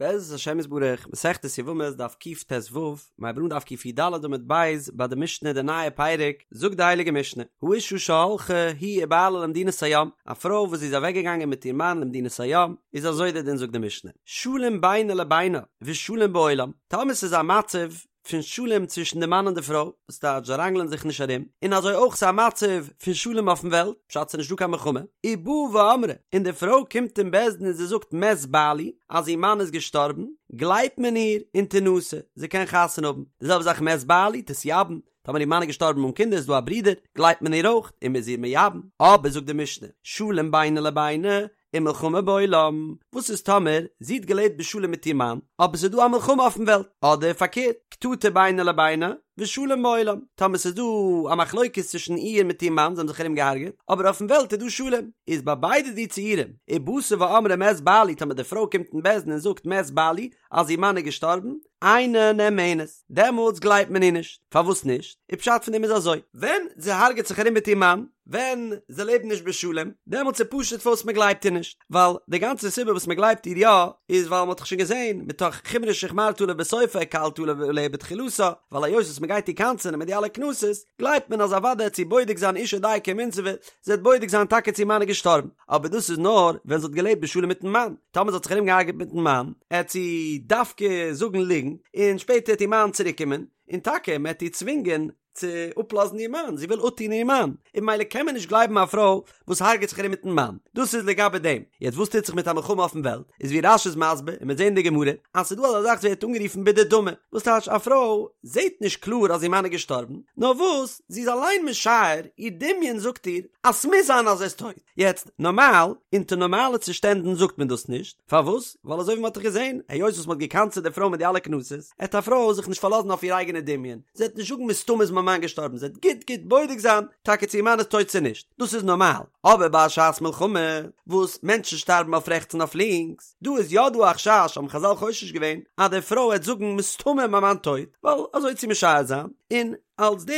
בעזרת השם יתברך, מסכת יבמות דף קט"ו, מ'הייבט אן דף קי"ד עמוד ב', ביי די משנה די נייע פרק, זאגט די הייליגע משנה, האשה שהלכה היא ובעלה למדינת הים, א פרוי וואס זי איז אוועק געגאנגען מיט איר מאן למדינת הים, איז אזוי דער דין זאגט די משנה, שלום בינה לבינה ושלום בעולם, טאמער ס'איז א מצב פון שלום צווישן די מאן און די פרוי, וואס טייטש זיי ראנגלען זיך נישט ארום, און אזוי אויך ס'איז א מצב פון שלום אויפן וועלט, פשט ס'איז נישטא קיין מלחמה, ובאה ואמרה, און די פרוי קומט אין בית דין און זי זאגט מת בעלי, אז איר מאן איז געשטארבן, גלייבט מען איר און תנשא, זי קען חתונה האבן, די זעלבע זאך מת בעלי, תתייבם, טאמער איר מאן איז געשטארבן אן קינדער איז דא א ברודער, גלייבט מען איר אויך, און מ'איז איר מייבם, אבער זאגט די משנה, שלום בינה לבינה, ומלחמה בעולם, וואס איז טאמער זי האט געלעבט בשלום מיט איר מאן, אבער ס'איז דא א מלחמה אויפן וועלט, אדער פארקערט, קטטה בינה לבינה, ושלום בעולם, טאמער ס'איז דא א מחלוקת צווישן איר מיט איר מאן, זיי האבן זיך ארום געהארגעט, אבער אויפן וועלט איז דא שלום, איז ביי ביידע די ציורים, ובאתה ואמרה מת בעלי, טאמער די פרוי קומט אין בית דין און זאגט מת בעלי, אז איר מאן איז געשטארבן, אינה נאמנת, דעמאלטס גלייבט מען איר נישט, פארוואס נישט? און פשט פון דעם איז אזוי, ווען זי הרג'עט זיך ארום מיט איר מאן, ווען זיי לעבן נישט בשלום, דעמאלטס איז פשוט פארוואס מען גלייבט איר נישט, ווייל די גאנצע סיבה וואס מען גלייבט איר יא, איז ווייל מען האט דאך שוין געזען, מתוך חומרא שהחמרת עליה בסופה הקלת עליה בתחילתה, ווייל היות וואס מען גייט איר קנס'ענען מיט די אלע קנסות, גלייבט מען אז אוודאי העט זי בודק זיין אשה דייקא ומינסבא, זי העט בודק זיין טאקע צו איר מאן איז געשטארבן, אבער דאס איז נאר ווען זי האט געלעבט בשלום מיטן מאן, טאמער זי האט זיך ארום געהארגעט מיטן מאן, העט זי דווקא זאגן ליגנט, און שפעטער העט איר מאן צוריק קומען, און טאקע מען העט איר צווינגען צו אפלאזן איר מאן, זי וויל אפטון איר מאן, און ממילא קען מען נישט גלייבן א פרוי וואס הרג'עט זיך ארום מיטן מאן, דאס איז לגבי דעם, יעצט וואס טוט זיך מיט א מלחמה אויפן וועלט, איז ווי רש"י איז מסביר, און מ'וועט זען אין די גמרא, אז ס'איז דא אזא זאך וואס ווערט אנגערופן בדדמי, וואס טייטש א פרוי זעט נישט קלאר אז איר מאן איז געשטארבן, נאר וואס, זי איז אליין משער, איר דמיון זאגט איר, אז ס'מוז זיין אז ער איז טויט. יעצט, נארמאל, אונטער נארמאלע צושטענדן זאגט מען דאס נישט, פארוואס? ווייל אזוי ווי מ'האט דאך געזען, היות וואס מ'האט געקנס'עט די פרוי מיט די אלע קנסות, עט א פרוי זיך נישט פארלאזן אויף איר אייגענע דמיון, זי וועט נישט זאגן מסתמא איז מיין מאן געשטארבן, זי וועט גוט גוט בודק זיין טאקע צו איר מאן איז טויט צו נישט, דאס איז נארמאל. אבער ביי א שעת מלחמה, וואס מענטשן שטארבן אויף רעכטס און אויף לינקס, דא איז יא דא א חשש, האבן חז"ל חושש געווען, אז די פרוי וועט זאגן מסתמא איז מיין מאן טויט, ווייל אזוי עט זי משער זיין, און אלס די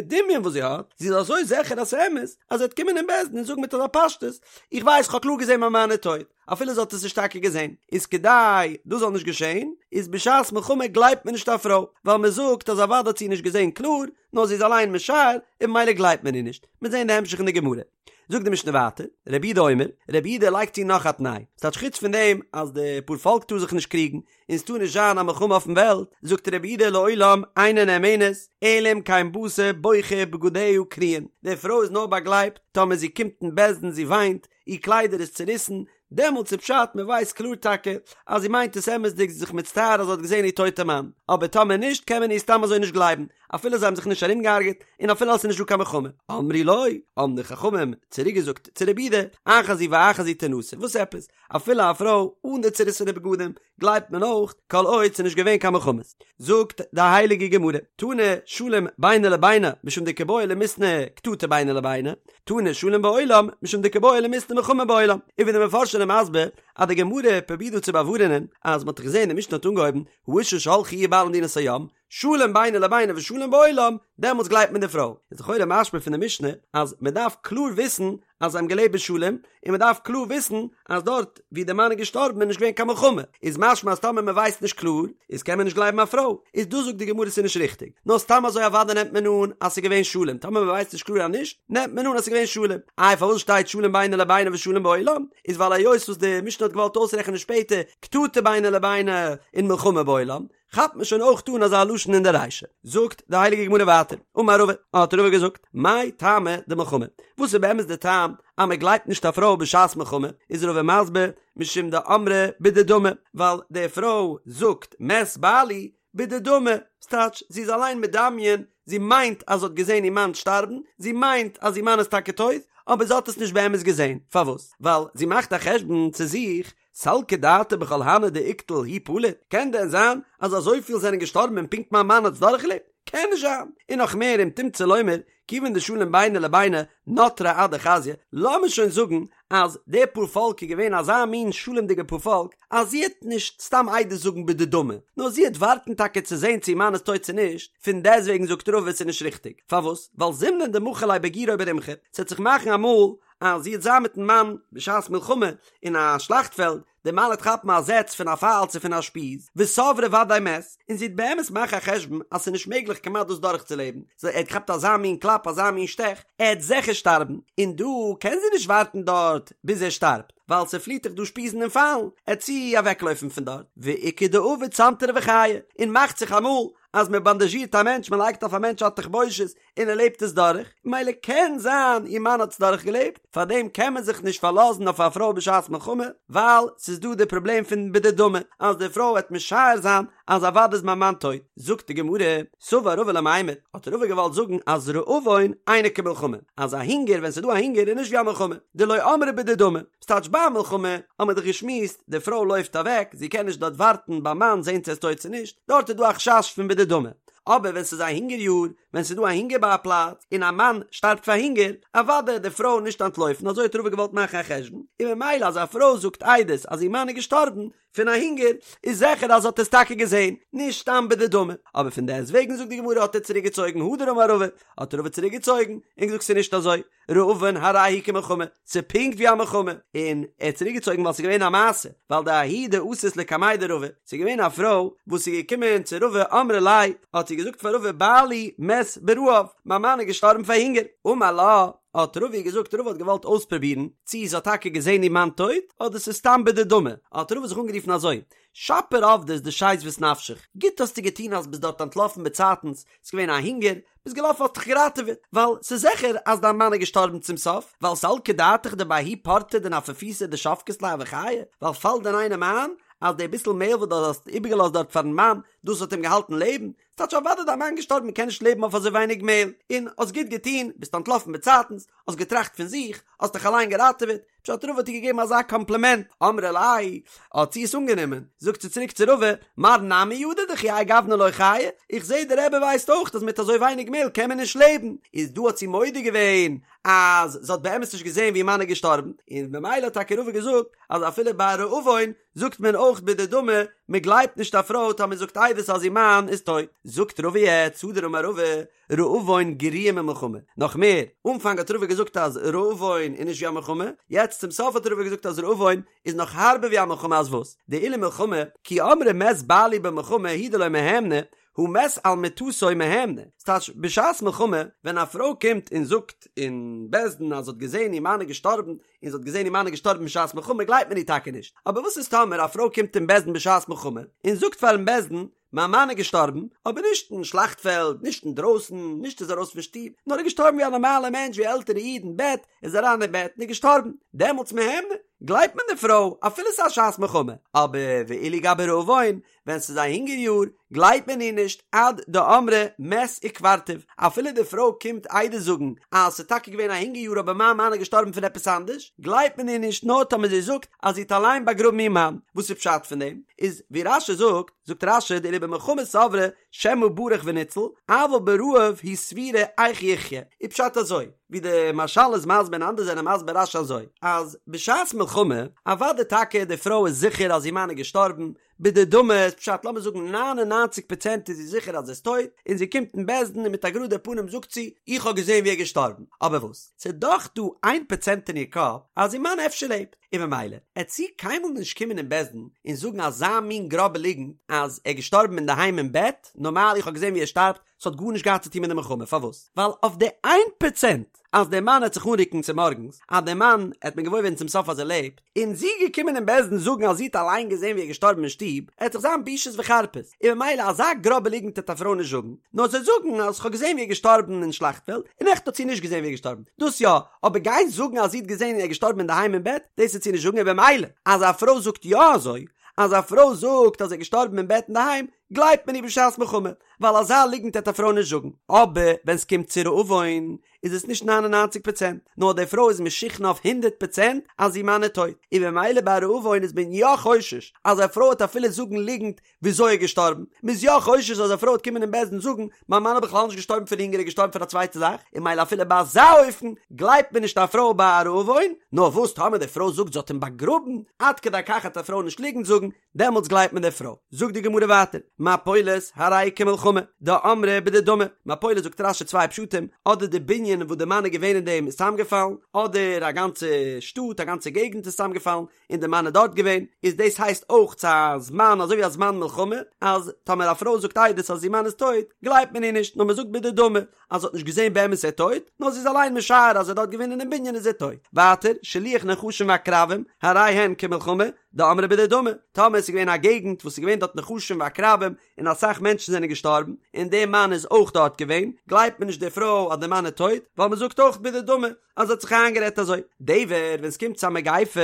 דמיון וואס זי האט, זי איז אזוי זיכער אז ס'איז אמת, אז זי וועט קומען אין בית דין און זאגן מיט אזא פשטות, איך ווייס כ'האב קלאר געזען מיין מאן איז טויט, אפילו זי האט עס נישט טאקע געזען, איז כדי דאס זאל נישט געשען, איז בשעת מלחמה גלייבט מען נישט א פרוי, ווייל מען זאגט אז אוודאי האט זי נישט געזען קלאר, נאר זי איז אליין משער, און ממילא גלייבט מען איר נישט. מ'וועט זען די המשך אין די גמרא. זאגט די משנה ווייטער, רבי יהודה אומר, רבי יהודה לייגט צו נאך א תנאי, ס'טייטש חוץ פון דעם אז די פארפאלק טאר זיך נישט קריגן, און ס'טאר נישט זיין א מלחמה אויפן וועלט, זאגט רבי יהודה לעולם אינה נאמנת, אלא אם כן באת בוכה ובגדיה קרועין, די פרוי איז נאר באגלייבט טאמער זי קומט אין בית דין זי וויינט, איר קליידער איז צוריסן, דעמאלטס איז פשט מען ווייסט קלאר טאקע אז זי מיינט עס אמת'דיג זי איז זיך מצטער אז זי האט געזען איר טויטע מאן, אבער טאמער נישט קען מען איר סתם אזוי נישט גלייבן אפילו זיי האבן זיך נישט ארומגעהארגעט און אפילו אז ס'איז נישט דא קיין מלחמה. אמרו לו, האבן די חכמים צוריק געזאגט צו רבי יהודה, אחת זו ואחת זו תנשא, וואס עפעס? אפילו א פרוי אן די צוריסענע בגדים גלייבט מען אויך, כל עוד ס'איז נישט געווען קיין מלחמות. זאגט די הייליגע גמרא, תנא שלום בינה לבינה משום דקא בעי למיתנא קטטה בינה לבינה, תנא שלום בעולם משום דקא בעי למיתנא מלחמה בעולם. און ווי די מפרשים זענען מסביר אז די גמרא פרובירט דא צו באווארענען אז מ'האט דאך געזען די משנה האט אנגעהויבן האשה שהלכה היא ובעלה למדינת הים, שלום בינה לבינה ושלום בעולם, דעמאלטס גלייבט מען די פרוי. איז לכאורה משמע פון די משנה אז מען דארף קלאר וויסן אז זיי האבן געלעבט בשלום, און מען דארף קלאר וויסן אז דארט ווי די מאן איז געשטארבן איז נישט געווען קיין מלחמה, איז משמע אז טאמער מען ווייסט נישט קלאר איז קען מען נישט גלייבן א פרוי, איז דא זאגט די גמרא ס'איז נישט ריכטיג, נאר סתם אזוי אוודאי נעמט מען אן אז ס'איז געווען שלום, טאמער מען ווייסט נישט קלאר אז נישט, נעמט מען אן אז ס'איז געווען שלום. איי פארוואס שטייט שלום בינה לבינה ושלום בעולם? איז ווייל היות וואס די משנה האט געוואלט אויסרעכענען שפעטער קטטה בינה לבינה און מלחמה בעולם, כאפט מען שוין אויך אן אזא לשון אין די רישא. זאגט די הייליגע גמרא ווייטער, אמר רבא, האט רבא געזאגט, מאי טעמא דמלחמה, וואס איז באמת די טעם אז מען גלייבט נישט א פרוי בשעת מלחמה, איז רבא מסביר, משום דאמרה בדדמי, ווייל די פרוי זאגט מת בעלי בדדמי, ס'טייטש זי איז אליין מדמיין, זי מיינט אז זי האט געזען איר מאן שטארבן, זי מיינט אז איר מאן איז טאקע טויט, אבער זי האט עס נישט באמת געזען, פארוואס? ווייל זי מאכט א חשבון צו זיך, סלקא דעתך בכל הני דאיקטול הוא פליט, קען דען זיין אז אזויפיל זענען געשטארבן און פונקט מיין מאן האט עס דורכגעלעבט? קען נישט זיין! און נאך מער אם תמצא לומר, כיוון דשלום בינה לבינה נטרה עד דחזיא, לאמיר שוין זאגן אז די פארפאלק איז געווען אזא מין שלומ'דיגע פארפאלק אז זי העט נישט סתם עדות זאגן בדדמי, נאר זי העט ווארטן טאקע צו זען צו איר מאן איז טויט צו נישט, פון דעסטוועגן זאגט רבא עס איז נישט ריכטיג, פארוואס? ווייל זימנין דמחו ליה בגירא או ברומחא, ס'עט זיך מאכן אמאל. אז זי וועט זיין מיטן מאן בשעת מלחמה אין א שלאכטפעלד, דער מאן וועט כאפן א זעץ פון א פייל צו פון א שפיז, וסברה ודאי מת, און זי וועט באמת מאכן א חשבון אז ס'איז נישט מעגליך כמעט דאס דורכצולעבן, סאו ער האט געכאפט אזא מין קלאפ אזא מין שטעך, ער וועט זיכער שטארבן, און דא קען זי נישט ווארטן דארט ביז ער שטארבט, ווייל ס'פליעט דאך דא שפיזן און פיילן, עט זי אוועקלויפן פון דארט, ואיכא דעביד סנטרא וחיי, און מאכט זיך אמאל אז מ'באנדאזשירט א מענטש, מ'לייגט אויף א מענטש א תחבושת, און ער לעבט עס דורך, מילא קען זיין איר מאן האט עס דורך געלעבט, פארדעם קען מען זיך נישט פארלאזן אויף א פרוי בשעת מלחמה, ווייל ס'איז דא די פראבלעם פון בדדמי, אז די פרוי וועט משער זיין אז אוודאי איז מיין מאן טויט. זאגט די גמרא, סבר רבא למימר, האט רבא געוואלט זאגן אז רעבון אינו כמלחמה, אז א הונגער ווען ס'איז דא א הונגער איז נישט ווי א מלחמה, דלא אמרה בדדמי, ס'טייטש ביי א מלחמה האט מען דאך געשמועסט, די פרוי לויפט אוועק, זי קען נישט דארט ווארטן ביים מאן זען צו ער איז טויט צו נישט, דארט איז דא א חשש פון בדדמי, אבער ווען ס'איז א הונגער יאר, ווען ס'איז דא א הונגער ביי א פלאץ, און א מאן שטארבט פאר הונגער, אוודאי וועט די פרוי נישט אנטלויפן, אזוי האט רבא געוואלט מאכן א חשבון, און ממילא אז א פרוי זאגט עדות אז איר מאן איז געשטארבן פון א הונגער, איז זיכער אז זי האט עס טאקע געזען, נישט סתם בדדמי. אבער פון דעסט וועגן זאגט די גמרא האט ער צוריק געצויגן הדר אמר רבא, האט רבא צוריק געצויגן, און געזאגט ס'איז נישט אזוי, רעבון הרי הוא כמלחמה, ס'איז פונקט ווי א מלחמה, און ער האט צוריק געצויגן ווייל ס'איז געווען א מעשה, ווייל דההיא דאתת לקמיה דרבא, ס'איז געווען א פרוי וואס איז געקומען צו רבא אמרה ליה, האט זי געזאגט פאר רבא בעלי מת ברעב, מיין מאן איז געשטארבן פאר הונגער, אמר לה, האט רבא געזאגט, רבא האט געוואלט אויספרובירן צי זי האט טאקע געזען איר מאן טויט, אדער ס'איז סתם בדדמי, האט רבא זיך אנגערופן אזוי, שפיר עבדת דשיזבת נפשך, גוט האסטו געטון אז ביסט דארט אנטלאפן באצייטנס, ס'איז געווען א הונגער, ביסט געלאפן האסט דיך געראטעוועט, ווייל ס'איז זיכער אז דיין מאן איז געשטארבן צום סוף, ווייל סלקא דעתך דבההוא פורתא דנפפותא דשבקת ליה הוה חייא, ווייל פאלט דען איינעם איין אז די ביסל מעהל וואס דו האסט איבערגעלאזט דארט פארן מאן, דאס האט אים געהאלטן לעבן, ס'טייטש אוודאי דיין מאן געשטארבן מ'קען נישט לעבן אויף אזוי ווייניג מעהל, און האסט גוט געטון, ביסט אנטלאפן באצייטנס, האסט געטראכט פון זיך, האסט דיך אליין געראטעוועט, פשט רבא האט איר געגעבן אזא קאמפלימענט, אמרה ליה, האט זי עס אנגענומען, זאגט זי צוריק צו רבא, מר נמי ידע דכי האי גוונא לא חיי, איך זעה דער רבי ווייסט אויך אז מיט אזוי ווייניג מעהל קען מען נישט לעבן, איז דא האט זי מודה געווען אז זי האט באמת נישט געזעהן ווי איר מאן איז געשטארבן, און ממילא האט טאקע רבא געזאגט אז אפילו ביי רעבון זאגט מען אויך בדדמי, מען גלייבט נישט א פרוי טאמער זאגט עדות אז איר מאן איז טויט. זאגט רבא יעצט, הדר אמר רבא, רעבון גריעא ממלחמה. נאך מער, אנפאנג האט רבא געזאגט אז רעבון איז נישט ווי א מלחמה, יעצט צום סוף האט רבא געזאגט אז רעבון איז נאך הארבער ווי א מלחמה אז וואס? דאילו מלחמה, כי אמרה מת בעלי במלחמה הוא דלא מהימנא, הא מת על מטתו מהימנא. ס'טייטש, בשעת מלחמה, ווען א פרוי קומט און זאגט אין בית דין אז זי האט געזען איר מאן איז געשטארבן, און זי האט געזען איר מאן איז געשטארבן בשעת מלחמה גלייבט מען איר טאקע נישט, אבער וואס איז טאמער א פרוי קומט אין בית דין בשעת מלחמה און זאגט פארן בית דין מיין מאן איז געשטארבן, אבער נישט אין שלאכטפעלד, נישט אינדרויסן, נישט איז ארויס פון שטוב, נאר ער איז געשטארבן ווי א נארמאלער מענטש ווי עלטערע איד אין בעט, איז אריין אין בעט און איז געשטארבן, דעמאלטס מהימנא, גלייבט מען די פרוי אפילו ס'איז א שעת מלחמה, אבער ואילו גבי רעבון, ווען ס'איז א הונגער יאר, גלייבט מען איר נישט עד דאמרה מת וקברתיו, אפילו די פרוי קומט עדות זאגן אז ס'איז טאקע געווען א הונגער יאר אבער מיין מאן איז געשטארבן פון עפעס אנדערש, גלייבט מען איר נישט נאר טאמער זי זאגט אז זי האט אליין באגראבן איר מאן. וואס איז פשט פון דעם? איז ווי רש"י זאגט, זאגט רש"י דאילו במלחמה סברה שמא ברח וניצל, אבל ברעב היא סבורה איך יחיה, איז פשט אזוי, ווי די מהרש"ל איז מסביר און אנדערע זענען מסביר רש"י אזוי, אז בשעת מלחמה, אוודאי טאקע די פרוי איז זיכער אז איר מאן איז געשטארבן, בדדמי איז פשט לאמיר זאגן 99 פראצענט איז זי זיכער אז ער איז טויט, און זי קומט אין בית דין און מיט א גראדע פנים זאגט זי, איך האב געזען ווי ער איז געשטארבן, אבער וואס? ס'איז דאך דא איין פראצענט אין איר קאפ אז איר מאן אפשר לעבט, און ממילא עט זי קיינמאל נישט קומען אין בית דין און זאגן אזא מין גראבע ליגנט אז ער איז געשטארבן אינדערהיים אין בעט, נארמאל איך האב געזען ווי ער שטארבט, ס'האט גארנישט געהאט צו טון מיט די מלחמה, פארוואס? ווייל אויף די איין פראצענט אז דער מאן עט זיך אנרוקן צומארגנס, אז דער מאן עט מען געוואויר ווערן צום סוף אז ער לעבט, און זי געקומען אין בית דין זאגן אז זי האט אליין געזען ווי ער איז געשטארבן אין שטוב, עט דאך זיין בושות וחרפות, און ממילא אזא גראבע ליגנט עט א פרוי נישט זאגן, נאר זי זאגן אז כ'האב געזען ווי ער איז געשטארבן אין שלאכטפעלד, און עכט האט זי נישט געזען ווי ער איז געשטארבן, דאס יא, אבער גיין זאגן אז זי האט געזען ווי ער איז געשטארבן אינדערהיים אין בעט, דאס עט זי נישט זאגן, און במילא אז א פרוי זאגט יא אזוי, אז א פרוי זאגט אז ער איז געשטארבן אין בעט אינדערהיים, גלייבט מען איר בשעת מלחמה, ווייל אזא ליגנט העט א פרוי נישט זאגן, אבער ווען סקומט צו רעבון איז עס נישט 99 פראצענט, נאר די פרוי איז משוכנע אויף הונדערט פראצענט אז איר מאן איז טויט, און במילא ביי רעבון איז מען יא חושש אז א פרוי העט אפילו זאגן ליגנט וויאזוי ער איז געשטארבן, מען איז יא חושש אז א פרוי העט קומען אין בית דין זאגן מיין מאן איז בכלל נישט געשטארבן פון הונגער ער איז געשטארבן פון א צווייטע זאך, און מילא אפילו ביי אזא אופן גלייבט מען נישט א פרוי ביי א רעבון, נאר וואס טאמער די פרוי זאגט זי האט אים באגראבן, עד כדי כך העט א פרוי נישט ליגנט זאגן, דעמאלטס גלייבט מען די פרוי. זאגט די גמרא ווייטער, מפולת הרי כמלחמה, דאמרה בדדמי, מפולת זאגט רש"י צוויי פשטים, אדער די בנין וואס די מאן איז געווען אין דעם איז צוזאמגעפאלן, אדער א גאנצע שטאט א גאנצע געגנט איז צוזאמגעפאלן, און די מאן איז דארט געווען, איז דאס הייסט אויך צו א זמן אזוי ווי א זמן מלחמה, אז טאמער א פרוי זאגט עדות אז איר מאן איז טויט, גלייבט מען איר נישט, נאר מען זאגט בדדמי, אז זי האט נישט געזען באמת ער טויט, נאר זי איז אליין משער אז ער איז דארט געווען אינעם בנין איז ער טויט. ווייטער, שילוח נחשים ועקרבים, הרי הן כמלחמה, דאמרה בדדמי, טאמער עס איז געווען א געגנט וואס איז געווען דארט נחשים ועקרבים, און אסאך מענטשן זענען געשטארבן, און דער מאן איז אויך דארט געווען, גלייבט מען נישט די פרוי אז דער מאן איז טויט, ווייל מען זאגט אויך בדדמי, אז זי האט זיך איינגערעדט אזוי. דבר, ווען עס קומט צו א מגיפה,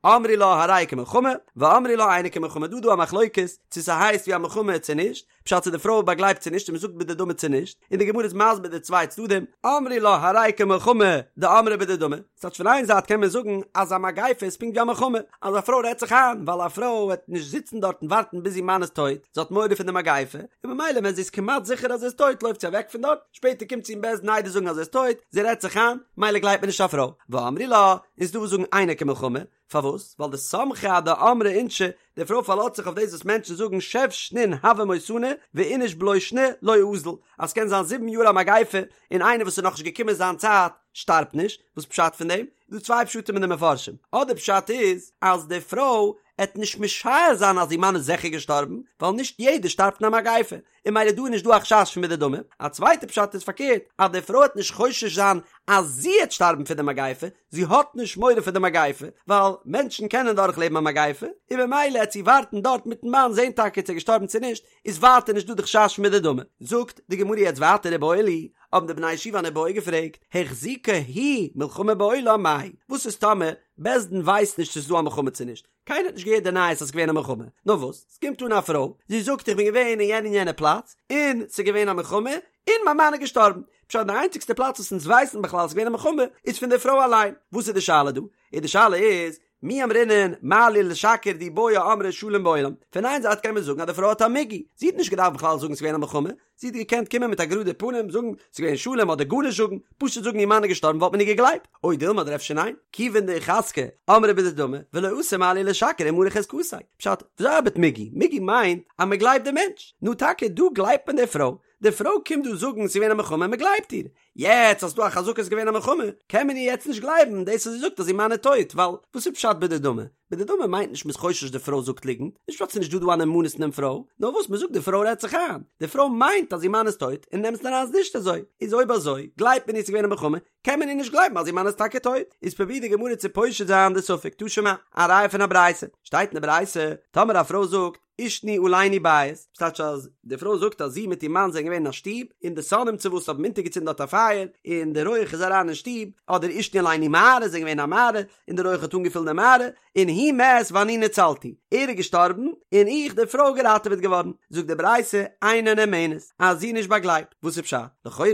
אמרי לה הרי כמלחמה, ואמרי לה אינה כמלחמה, דא איז דא א מחלוקת צו ס'הייסט ווי א מלחמה צו נישט, פשט צו די פרוי באגלייבט צו נישט און מ'זאגט בדדמי צו נישט, און די גמרא איז מסביר די צוויי צדדים, אמרי לה הרי כמלחמה דאמרה בדדמי, ס'טייטש פון איין זייט קען מען זאגן אז א מגיפה איז פונקט ווי א מלחמה, אז א פרוי רעדט זיך איין, ווייל א פרוי וועט נישט זיצן דארט און ווארטן ביז איר מאן איז טויט, זי האט מורא פון די מגיפה, און ממילא ווען זי איז כמעט זיכער אז ער איז טויט לויפט זי אוועק פון דארט, שפעטער קומט זי אין בית דין עדות זאגן אז ער איז טויט, זי רעדט זיך איין, ממילא גלייבט מען נישט א פרוי, ואמרי לה, און ס'דא וואס זאגן אינה כמלחמה, פארוואס? ווייל דסמכה אדאמרי אינשי, די פרוי פארלאזט זיך אויף דאס וואס מענטשן זאגן שב שנין הוה מותנא ואיניש בלא שני לא אזיל, אז ס'קען זיין זיבן יאר א מגיפה און איינער וואס איז נאכנישט געקומען זיין צייט שטארבט נישט, וואס פשט פון דעם? איז דא צוויי פשטים אין די מפרשים, אדער פשט איז אז די פרוי עט נישט משער זיין אז איר מאן איז זיכער געשטארבן, ווייל נישט יעדער שטארבט אין א מגיפה, און ממילא דא איז נישט דא א חשש פון בדדמי, א צווייטע פשט איז פארקערט, אז די פרוי העט נישט חושש זיין אז זי העט שטארבן פון די מגיפה, זי האט נישט מורא פון די מגיפה, ווייל מענטשן קענען דורך לעבן א מגיפה, און ממילא העט זי ווארטן דארט מיטן מאן זען טאקע צו ער איז געשטארבן צו נישט, איז ווייטער נישט דא די חשש פון בדדמי. זאגט די גמרא יעצט ווייטער איבעיא להו, האבן די בני ישיבה אן איבעיא געפרעגט, החזיקה היא מלחמה בעולם מאי, וואס איז טאמער בית דין ווייסט נישט צו ס'איז דא א מלחמה צו נישט, קיינער האט נישט געהערט די נייעס אז ס'איז געווען א מלחמה, נאר וואס, ס'קומט אן א פרוי, זי זאגט איך בין געווען אין יענע און יענע פלאץ, און ס'איז געווען א מלחמה, און מיין מאן איז געשטארבן. פשט די איינציגסטע פלאץ וואס אונז ווייסן בכלל אז ס'איז געווען א מלחמה, איז פון די פרוי אליין. וואס איז די שאלה דא? איז די שאלה איז, מי אמרינן מה לי לשקר דאי בעיא אמרה שלום בעולם. פון איין זייט קען מען זאגן אז די פרוי האט א מיגו, זי האט נישט געדארפט בכלל זאגן ס'איז געווען א מלחמה, זי האט געקענט קומען מיט א גראדע פנים זאגן ס'איז געווען שלום אדער גארנישט זאגן, פשוט זאגן איר מאן איז געשטארבן וואלט מען איר געגלייבט, או דילמא אדער אפשר ניין, כיוון דאיחזקה אמרה בדדמי ולא אתי מה לי לשקר ומרע חזקתיה, פשט, וויאזוי ארבעט מיגו? מיגו מיינט אז מען גלייבט די מענטש, נו טאקע דא גלייבט מען די פרוי, די פרוי קומט דא זאגן ס'איז געווען א מלחמה מען גלייבט איר, יעצט אז ס'דא א חזקה ס'איז געווען א מלחמה, קען מען איר יעצט נישט גלייבן דאס וואס זי זאגט אז איר מאן איז טויט, ווייל וואס איז פשט בדדמי? בדדמי מיינט נישט מ'איז חושש די פרוי זאגט ליגנט, נישט פשט ס'איז נישט דא דא א נאמנות אין דעם פרוי, נאר וואס מ'זאגט די פרוי רעדט זיך איין, די פרוי מיינט אז איר מאן איז טויט און אין אמת'ן אריין איז נישט אזוי, איז אויב אזוי גלייבט מען איר ס'איז געווען א מלחמה, קען מען איר נישט גלייבן אז איר מאן איז טאקע טויט, איז פרובירט די גמרא צו פושט זיין די ספק, תא שמע, א ראיה פון א ברייתא, שטייט אין די ברייתא, טאמער א פרוי זאגט, עישנו עלינו בית, ס'טייטש אז די פרוי זאגט אז זי מיט איר מאן זענען געווען אין א שטוב, און די שונאים צו וואס האבן אונטערגעצינדן דארט א פייער, און די רויעך איז אריין אין שטוב, אדער עישנו עלינו מערה, זענען געווען אין א מערה, און די רויעך האט אנגעפילט די מערה, און הוא מת ואני נצלתי, ער איז געשטארבן, און איך, די פרוי, געראטעוועט געווארן. זאגט די ברייתא, אינה נאמנת, אז זי איז נישט באגלייבט. וואס איז פשט? לכאורה,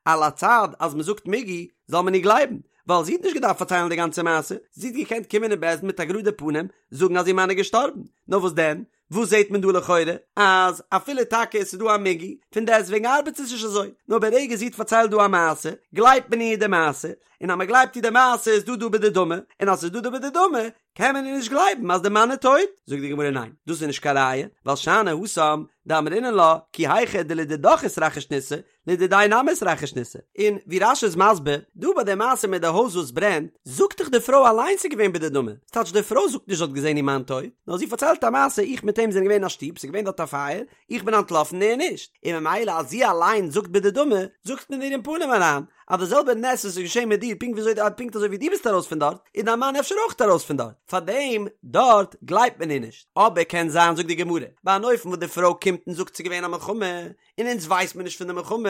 על הצד אז מ'זאגט מיגו, זאל מען איר גלייבן, ווייל זי האט נישט געדארפט פארציילן די גאנצע מעשה, זי האט געקענט קומען אין בית דין מיט א גראדע פנים זאגן אז איר מאן איז געשטארבן, נאר וואס דען, וואס זעט מען דא לכאורה? אז אפילו טאקע עס איז דא א מיגו, פון דעסטוועגן ארבעט עס נישט אזוי, נאר ברגע זי האט פארציילט דא א מעשה, גלייבט מען איר די מעשה, און אז מען גלייבט איר די מעשה איז דא דא בדדמי, און אז ס'איז דא דא בדדמי, קען מען איר נישט גלייבן אז די מאן איז טויט? זאגט די גמרא ניין, דאס איז נישט קיין ראיה, ווייל שאני התם דאמרינן לה, כי היכי דלדידך איתרחיש ניסא, לדידיה נמי איתרחיש ניסא. און ווי רש"י איז מסביר, דא ביי די מעשה מיט די הויז וואס ברענט, זאגט דאך די פרוי אליינס ס'איז געווען בדדמי, ס'טייטש די פרוי זאגט נישט זי האט געזען איר מאן טויט, נאר זי פארציילט א מעשה איך מיט אים זענען געווען אין א שטוב, ס'איז געווען דארט א פייער, איך בין אנטלאפן ער נישט, און ממילא אז זי אליין זאגט בדדמי, זאגט מען איר אין פנים אריין, אז די זעלבע נס וואס איז געשען מיט דיר פונקט וויאזוי פונקט אזוי ווי דו ביסט ארויס פון דארט, איז דיין מאן אפשר אויך ארויס פון דארט, פארדעם דארט גלייבט מען איר נישט. אבער קען זיין זאגט די גמרא, ביי אן אופן וואס די פרוי קומט און זאגט ס'איז געווען א מלחמה, און אונז ווייסט מען נישט פון די מלחמה,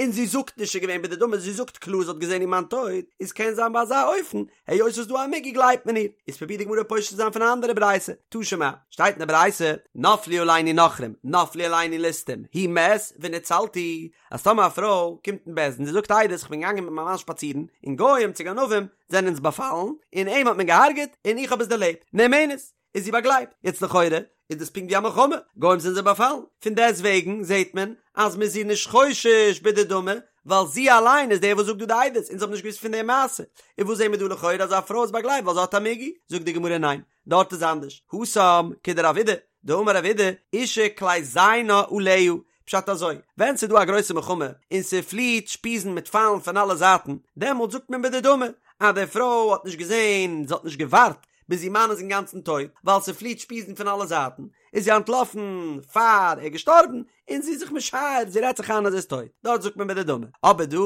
און זי זאגט נישט ס'איז געווען בדדמי, זי זאגט קלאר זי האט געזען איר מאן טויט, איז קען זיין ביי אזא אופן, היות ס'איז דא א מיגו גלייבט מען איר, איז פרובירט די גמרא פושט צו זיין פון א אנדערע ברייתא, תא שמע, שטייט אין די ברייתא, נפלו עלינו נכרים, נפלו עלינו ליסטים, הוא מת ונצלתי, אז טאמער א פרוי קומט אין בית דין זי זאגט עדות איך בין געגאנגען מיט מיין מאן שפאצירן, און גוים צו גנבים זענען אונז באפאלן, און אים האט מען געהארגעט, און איך האב עס דערלעבט, נאמנת. איז זי באגלייבט. יעצט לכאורה איז דאס פונקט ווי א מלחמה, גוים זענען זיי באפאלן, פון דעסט וועגן זעט מען אז מ'איז איר נישט חושש בדדמי, ווייל זי אליין איז דער וואס זאגט דא די עדות, אונז האבן נישט געוואוסט פון די מעשה. און וואס זעהן מיר דא לכאורה אז א פרוי איז באגלייבט ווייל זי האט א מיגו? זאגט די גמרא ניין, דארט איז אנדערש, התם כדרב אידי. דאמר רב אידי, אשה כלי זיינה עליה, פשט אזוי, ווען ס'איז דא א גרויסע מלחמה און ס'פליעט שפיזן מיט פיילן פון אלע זייטן, דעמאלט זאגט מען בדדמי אז די פרוי האט נישט געזען, זי האט נישט געווארט ביז איר מאן איז אינגאנצן טויט, ווייל ס'פליעט שפיזן פון אלע זייטן, איז זי אנטלאפן פאר ער איז געשטארבן, און זי איז זיך משער, זי רעדט זיך איין אז ער איז טויט, דארט זאגט מען בדדמי. אבער דא,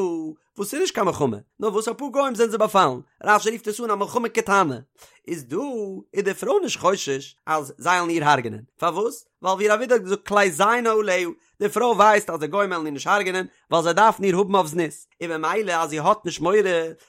וואס ס'איז נישט קיין מלחמה, נאר וואס אפאר גוים זענען זיי באפאלן, רש"י רופט עס אן א מלחמה קטנה, איז דא איז די פרוי נישט חושש אז זיי וועלן איר הרג'נען, פארוואס? ווייל ווי רב אידי האט געזאגט כלי זיינה עליה, די פרוי ווייסט אז די גוים וועלן איר נישט הרג'נען, ווייל זיי דארפן איר האבן אויף זנות, און ממילא אז זי האט נישט מורא,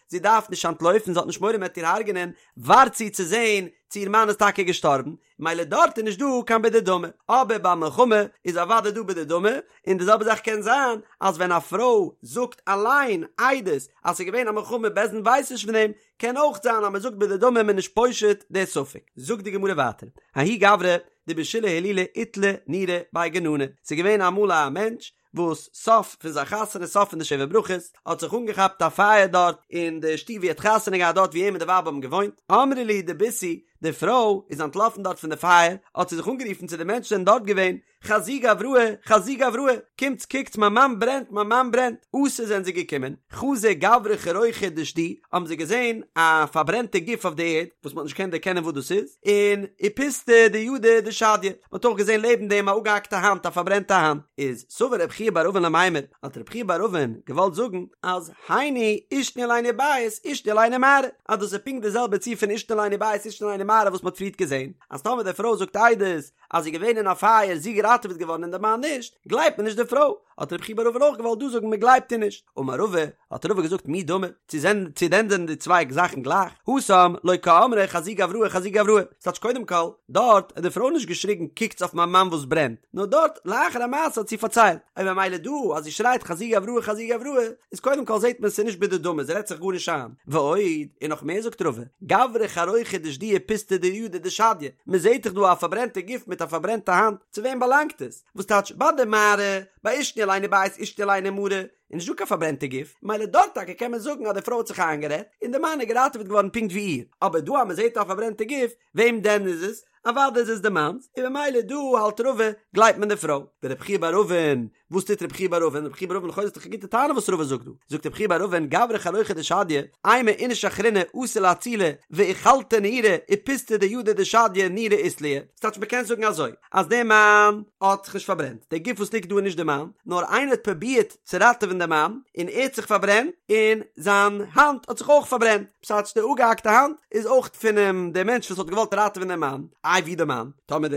זי דארף נישט אנטלויפן, זי האט נישט מורא מען וועט איר הרג'נען, ווארט זי צו זען צו איר מאן איז טאקע געשטארבן, מילא דארט איז נישט דא קיין בדדמי, אבער ביי מלחמה איז אוודאי דא בדדמי, און די זעלבע זאך קען זיין אז ווען א פרוי זאגט אליין עדות אז ס'איז געווען א מלחמה בית דין ווייסט נישט פון דעם, קען אויך זיין אז מ'זאגט בדדמי מ'איז נישט פושט די ספק. זאגט די גמרא ווייטער, ההוא גברא דבשילהי הילולא איתלי נורא בי גננא, ס'איז געווען אמאל א מענטש וואס סוף פון זיין חתונה סוף פון די שבע ברכות האט זיך אנגעכאפט א פייער דארט אין די שטוב ווי ער האט חתונה געהאט דארט ווי אים און די ווייב האבן געוואוינט, אמרה להו דביתהו, די פרוי איז אנטלאפן דארט פון די פייער, האט זי זיך אנגערופן צו די מענטשן זענען דארט געווען, חזו גבראי, חזו גבראי, קומטס קוקטס מיין מאן ברענט, מיין מאן ברענט, אתו זענען זיי געקומען, חזו גברא חרוכא דשדי, האבן זיי געזען א פארברענטע גוף אויף די ערד, וואס מען האט נישט געקענט דערקענען וואס דאס איז, און ופסתא דידא דשדיא, מען האט אויך געזען לעבן דעם א אפגעהאקטע האנט, א פארברענטע האנט, איז סבר רב חייא בר אבין למימר, האט רב חייא בר אבין געוואלט זאגן אז היינו עישנו עלינו בית עישנו עלינו מערה, אז דאס איז פונקט די זעלבע ציור פון עישנו עלינו בית עישנו עלינו מערה וואס מען האט פריערט געזען, אז טאמער די פרוי זאגט עדות אז זי איז געווען אין א פייער זי געראטעוועט געווארן און די מאן נישט, גלייבט מען נישט די פרוי, האט רב חייא בר אבין אויך געוואלט דא זאגן מען גלייבט איר נישט, אמר רבא, האט רבא געזאגט מי דמי, צו זענען צו דען זענען די צוויי זאכן גלייך, התם לא קאמרה חזו גבראי חזו גבראי, ס'טייטש קודם כל, דארט האט די פרוי נישט געשריגן קוקטס אויף מיין מאן וואס ברענט, נאר דארט לאחר המעשה האט זי פארציילט, און ממילא דא אז זי שרייט חזו גבראי חזו גבראי, איז קודם כל זעט מען ס'איז נישט בדדמי זי רעדט זיך גארנישט איין, ועוד, און נאך מער זאגט רבא, גברא חרוכא דשדיא ופסתא דידא דשדיא, מ'זעט דאך דא א פארברענטע גוף מיט א פארברענטע האנט, צו וועם באלאנגט עס? וואס טייטש ביי די מערה, ביי עישנו עלינו בית עישנו עלינו מערה, איז נישט דא קיין פארברענטע גוף, מילא דארט טאקע קען מען זאגן אז די פרוי האט זיך איינגערעדט, און די מאן איז געראטעוועט געווארן פונקט ווי איר, אבער דא אז מען זעט א פארברענטע גוף, וועם דען איז עס? אוודאי איז עס די מאנ'ס, און ממילא דא האלט רבא, גלייבט מען די פרוי. ורב חייא בר אבין, וואס טוט רב חייא בר אבין? רב חייא בר אבין לכאורה איז דאך א גוטע טענה וואס רבא זאגט דא, זאגט רב חייא בר אבין גברא חרוכא דשדיא, אימא איניש אחרינא אתי לאצולי ואיכלתא נורא ופסתא דידא דשדיא נורא אית ליה, ס'טייטש מ'קען זאגן אזוי, אז דער מאן האט זיך נישט פארברענט, דער גוף וואס ליגט דא איז נישט דער מאן, נאר איינער האט פרובירט צו ראטעווען דעם מאן, און ער האט זיך פארברענט, און זיין האנט האט זיך אויך פארברענט, ס'טייטש די אפגעהאקטע האנט איז אויך פונעם דער מענטש וואס האט געוואלט ראטעווען דעם מאן, איי ווי דער מאן? טאמער די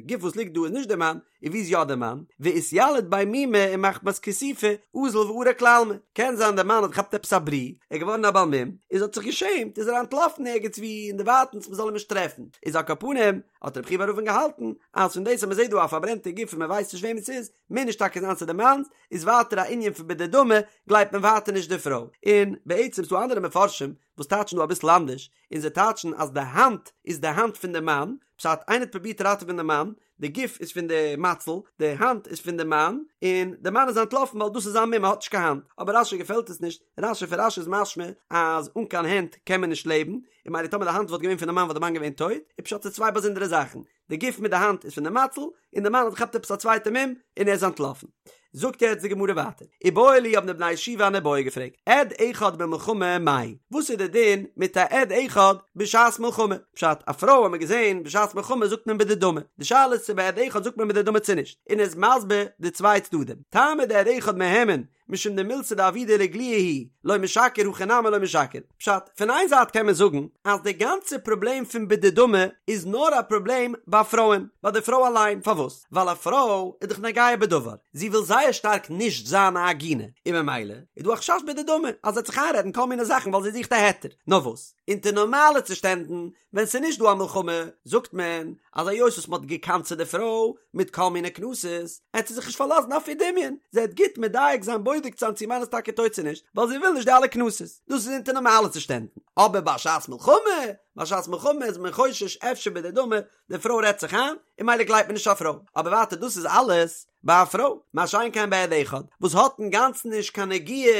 גוף וואס ליגט דא איז נישט דער מאן, און ווי איז יא דער מאן? ואתיליד ביה מומא ומחמת כיסופא אזל וערק לעלמא, קען זיין דער מאן האט געכאפט עפעס א ברי, ער איז געווארן א בעל מום, איז האט זיך געשעמט, איז ער אנטלאפן ערגעץ ווי אין די ווייטנס מען זאל אים נישט טרעפן, איז על כל פנים, האט רב חייא בר אבין געהאלטן אז פון דאס אז מען זעט דא א פארברענטע גוף און מען ווייסט נישט וועמען ס'איז, מוז נישט טאקע זיין ס'איז די מאנ'ס, איז ווייטער א ענין פון בדדמי, גלייבט מען ווייטער נישט די פרוי. און בעצם ס'דא אנדערע מפרשים וואס טייטשן דא אביסל אנדערש, און זיי טייטשן אז די האנט איז די האנט פון די מאן, פשט איינער האט פרובירט ראטעווען די מאן, די גוף איז פון די מציל, די האנט איז פון די מאן, און די מאן איז אנטלאפן ווייל דאס איז זיין מום ער האט נישט קיין האנט, אבער רש"י געפעלט עס נישט, רש"י פון רש"י איז משמע אז אן קיין הענט קען מען נישט לעבן, און ממילא טאמער די האנט וואלט געווען פון די מאן וואלט די מאן געווען טויט, איז פשט ס'איז צוויי באזונדערע זאכן, די גוף מיט די האנט איז פון די מציל, און די מאן האט געכאפט עפעס א צווייטע מום און ער איז אנטלאפן. זאגט יעצט די גמרא ווייטער, איבעיא להו האבן די בני ישיבה אן איבעיא געפרעגט, עד אחד במלחמה מהו, וואס איז די דין מיט א עד אחד בשעת מלחמה? פשט, א פרוי האט מען געזען בשעת מלחמה זאגט מען בדדמי, די שאלה איז צו ביי עד אחד זאגט מען בדדמי צו נישט, און ער איז מסביר די צוויי צדדים, טעמא דעד אחד מהימן, משום דמילתא דעבידא לאיגלויי הוא, לא משקר הכא נמי לא משקר. פשט, פון איין זייט קען מען זאגן אז די גאנצע פראבלעם פון בדדמי איז נאר א פראבלעם ביי פרויען, ביי די פרוי אליין, פארוואס? ווייל א פרוי איז דאך נוגע בדבר, זי וויל זייער שטארק נישט זיין א עגונה, און ממילא איז דא א חשש בדדמי אז זי וועט זיך איינרעדן כל מיני זאכן ווייל זי זוכט א היתר. נאר וואס, אונטער נארמאלע צושטענדן ווען ס'איז נישט דא א מלחמה, זאגט מען אז היות וואס מ'האט גע'קנס'עט די פרוי מיט כל מיני קנסות, עט זי זיך נישט פארלאזן אויף איר דמיון, זי עט גוט מדייק זיין בודק זיין צו מאן איז טאקע טויט צו נישט, ווייל זי וויל נישט די אלע קנסות. דאס איז אונטער נארמאלע צושטענדן. אבער בשעת מלחמה, בשעת מלחמה איז מען חושש אפשר בדדמי, די פרוי רעדט זיך איין, און ממילא גלייבט מען נישט א פרוי. אבער ווייטער דאס איז אלעס. ביי א פרוי, מה שאין כן ביי עד אחד וואס האט אינגאנצן נישט קיין נגיעה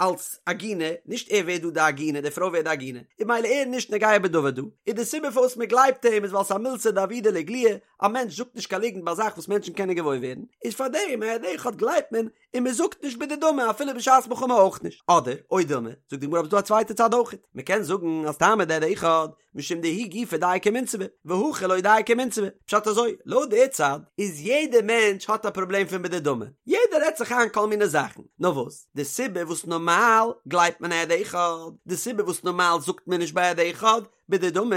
אלס עגונה, נישט ער ווערט דא די עגונה, די פרוי ווערט די עגונה, איז ממילא ער נישט נוגע בדבר דא, איז די סיבה פארוואס מען גלייבט אים איז ווייל ס'איז א מילתא דעבידא לאיגלויי, א מענטש זאגט נישט קיין ליגנט ביי א זאך וואס מענטשן קענען געוואויר ווערן, איז פארדעם א עד אחד גלייבט מען און מען זאגט נישט בדדמי אפילו בשעת מלחמה אויך נישט, אדער, או דילמא, זאגט די גמרא אבער ס'דא א צווייטע צד אויכעט, מען קען זאגן אז טעמא דעד אחד משום דהוא גופא דייקא ומינסבא, והכא לא דייקא ומינסבא, פשט אזוי, לויט די צד איז יעדע מענטש האט א פראבלעם פון בדדמי, יעדער רעדט זיך איין כל מיני זאכן, נאר וואס, די סיבה וואס נארמאל גלייבט מען עד אחד, די סיבה וואס נארמאל זאגט מען נישט ביי עד אחד, בדדמי,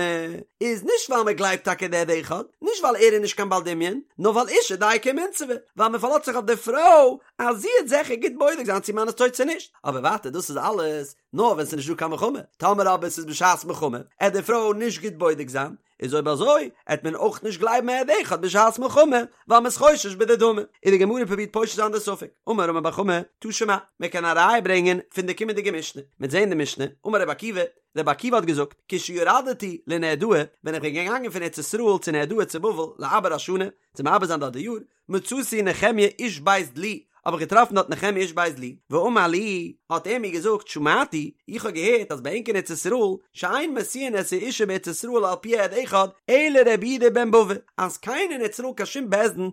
איז נישט ווייל מען גלייבט טאקע די עד אחד, נישט ווייל ער איז נישט קיין בעל דמיון, נאר ווייל אשה דייקא ומינסבא, ווייל מען פארלאזט זיך אויף די פרוי אז זי וועט זיכער גוט בודק זיין צו מאן איז טויט צו נישט, אבער ווייטער דאס איז אלעס נאר ווען ס'איז נישט דא קיין מלחמה, טאמער אבער ס'איז בשעת מלחמה, עט די פרוי נישט גוט בודק זיין, איז אויב אזוי עט מען אויך נישט גלייבן עד אחד בשעת מלחמה, ווייל מ'איז חושש בדדמי. און די גמרא פרובירט פושט זיין די ספק, אמר רמי בר חמא, תא שמע, מען קען א ראיה ברענגען פון די קומענדיגע משנה, מ'עט זעהן די משנה, אמר רבי עקיבא, רבי עקיבא האט געזאגט, כשירדתי לנהרדעא, ווען איך בין געגאנגען פון ארץ ישראל צו נהרדעא צו בבל, לעבר השנה, צו מעבר זיין דארט די יאר, מצאתי נחמיה איש בית דלי, האב איך געטראפן דארט נחמיה איש בית דלי, ואמר לי, האט ער מיר געזאגט, שמעתי, איך האב געהערט אז ביי ענק אין ארץ ישראל, שאין משיאין את האשה בארץ ישראל על פי עד אחד, אלא רבי יהודה בן בבא, אז קיינער אין ארץ ישראל קיין שום בית דין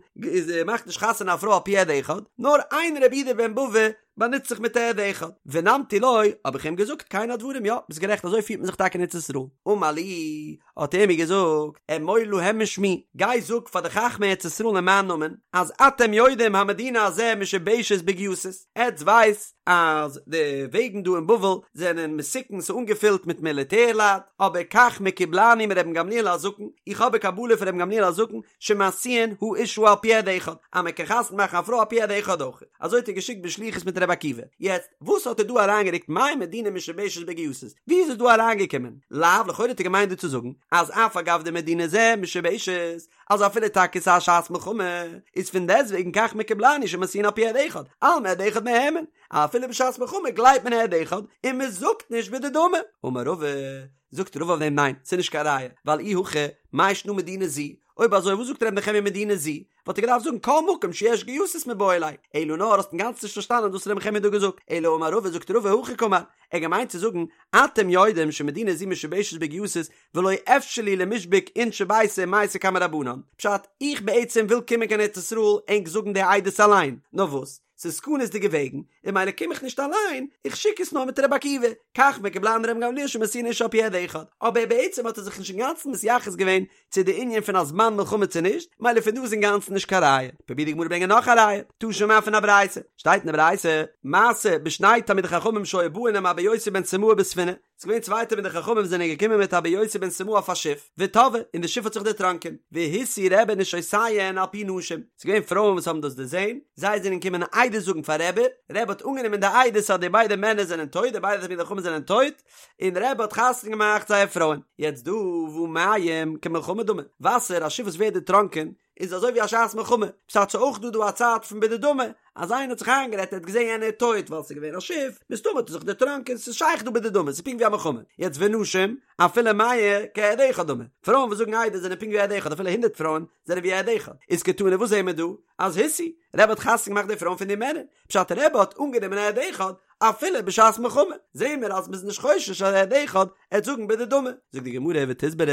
מאכט נישט חתונה א פרוי על פי עד אחד, נאר איין רבי יהודה בן בבא באנוצט זיך מיט א עד אחד, ונמתי לו, האב איך אים געזאגט כן הדברים, יא, ביסט גערעכט אזוי פירט מען זיך טאקע אין ארץ ישראל, אמר לי, האט ער מיר געזאגט, אמור להם משמי, גיי זאג פאר די חכמי ארץ ישראל אין מיין נאמען, אז אתם יודעים המדינה הזה משובשת בגייסות, עטס ווייסט אז די וועגן דא אין בבל זענען מסוכן ס'איז אנגעפילט מיט מיליטער לייט, אבער כך מקובלני מרבן גמליאל הזקן, איך האב א קבלה פון רבן גמליאל הזקן, שמשיאין האשה על פי עד אחד, אז מען קען חתונה מאכן א פרוי על פי עד אחד אויך. אזוי האט ער געשיקט בשליחות מיט רבי עקיבא. יעצט, וואס האט ער דא אריינגערוקט מאי מדינה משובשת בגייסות? ווי איז עס דא אריינגעקומען? לאו, לכאורה האט ער געמיינט דא צו זאגן, אז אף על גב דמדינה זה משובשת, אז אפילו טאקע ס'איז א שעת מלחמה, איז פון דעסטוועגן כך מקובלני שמשיאין על פי עד אחד, אלמא עד אחד מהימן, אפילו בשעת מלחמה גלייבט מען עד אחד, און מען זאגט נישט בדדמי. אמר רבא, זאגט רבא אויף דעם ניין, ס'איז נישט קיין ראיה, ווייל אי הכי, מאי שנא מדינה זו, אויב אזוי וואס זאגט ר' נחמיה מדינה זו? וואלט ער געדארפט זאגן כל מקום שיש גייסות מיבעי ליה, אלא נאר האסט אינגאנצן נישט פארשטאנען וואס ר' נחמיה האט דא געזאגט, אלא אמר רבא זאגט רבא הכי קאמר, ער האט געמיינט צו זאגן אתם יודעים שמדינה זו משובשת בגייסות ולא אפשר לי למישבק אינשי ביתא ומייתי קמי רבנן, פשט, איך בעצם וויל קומען קיין ארץ ישראל ענק זאגן די עדות אליין, נאר וואס? ס'איז סכנות'דיגע וועגן, און ממילא קום איך נישט אליין, איך שיק עס נאר מיט רבי עקיבא, כך מקובלני מרבן גמליאל שמשיאין אשה על פי עד אחד, אבער בעצם האט ער זיך נישט אינגאנצן מתייחס געווען צו די ענין פון א זמן מלחמה צו נישט, ממילא פון דא איז אינגאנצן נישט קיין ראיה. פרובירט די גמרא ברענגען נאך א ראיה, תא שמע פון א ברייתא, שטייט אין די ברייתא, מעשה בשני תלמידי חכמים שהיו באין עם אבא יוסי בן סימאי בספינה, ס'איז געווען צוויי תלמידי חכמים זענען געקומען מיט אבא יוסי בן סימאי אויף א שיף, וטבעה, און די שיף האט זיך דערטראנקען, והשיאו רבי נשותיהן על פי נשים, ס'איז געווען פרויען וואס האבן דאס דערזען, זיי זענען געקומען עדות זאגן פאר רבי, רבי האט אנגענומען די עדות אז די ביידע מענער זענען טויט, די ביידע תלמידי חכמים זענען טויט, און רבי האט חתונה געמאכט זייער פרויען. יעצט דא והא מים כמלחמה דמי, וואסער, א שיף וואס ווערט דערטראנקען, איז אזוי ווי א שעת מלחמה, פשט ס'איז אויך דא דא א צד פון בדדמי, אז איינער האט זיך איינגערעדט ער האט געזען יענער איז טויט ווייל ס'איז געווען א שיף, מסתמא האט ער זיך דערטראנקען, ס'איז שייך דא בדדמי, ס'איז פונקט ווי א מלחמה, יעצט ונשים, אפילו מאה כעד אחד דמי, פרויען וואס זאגן עדות זענען פונקט ווי עד אחד, אפילו הונדרעט פרויען זענען ווי עד אחד, איז קתני וואס זעהן מיר דא? אז השיאו, רבי האט חתונה געמאכט די פרויען פון די מענער, פשט רבי האט אנגענומען עד אחד, אפילו בשעת מלחמה, זעהן מיר אז מ'איז נישט חושש אז עד אחד עט זאגן בדדמי. זאגט די גמרא ותסברא,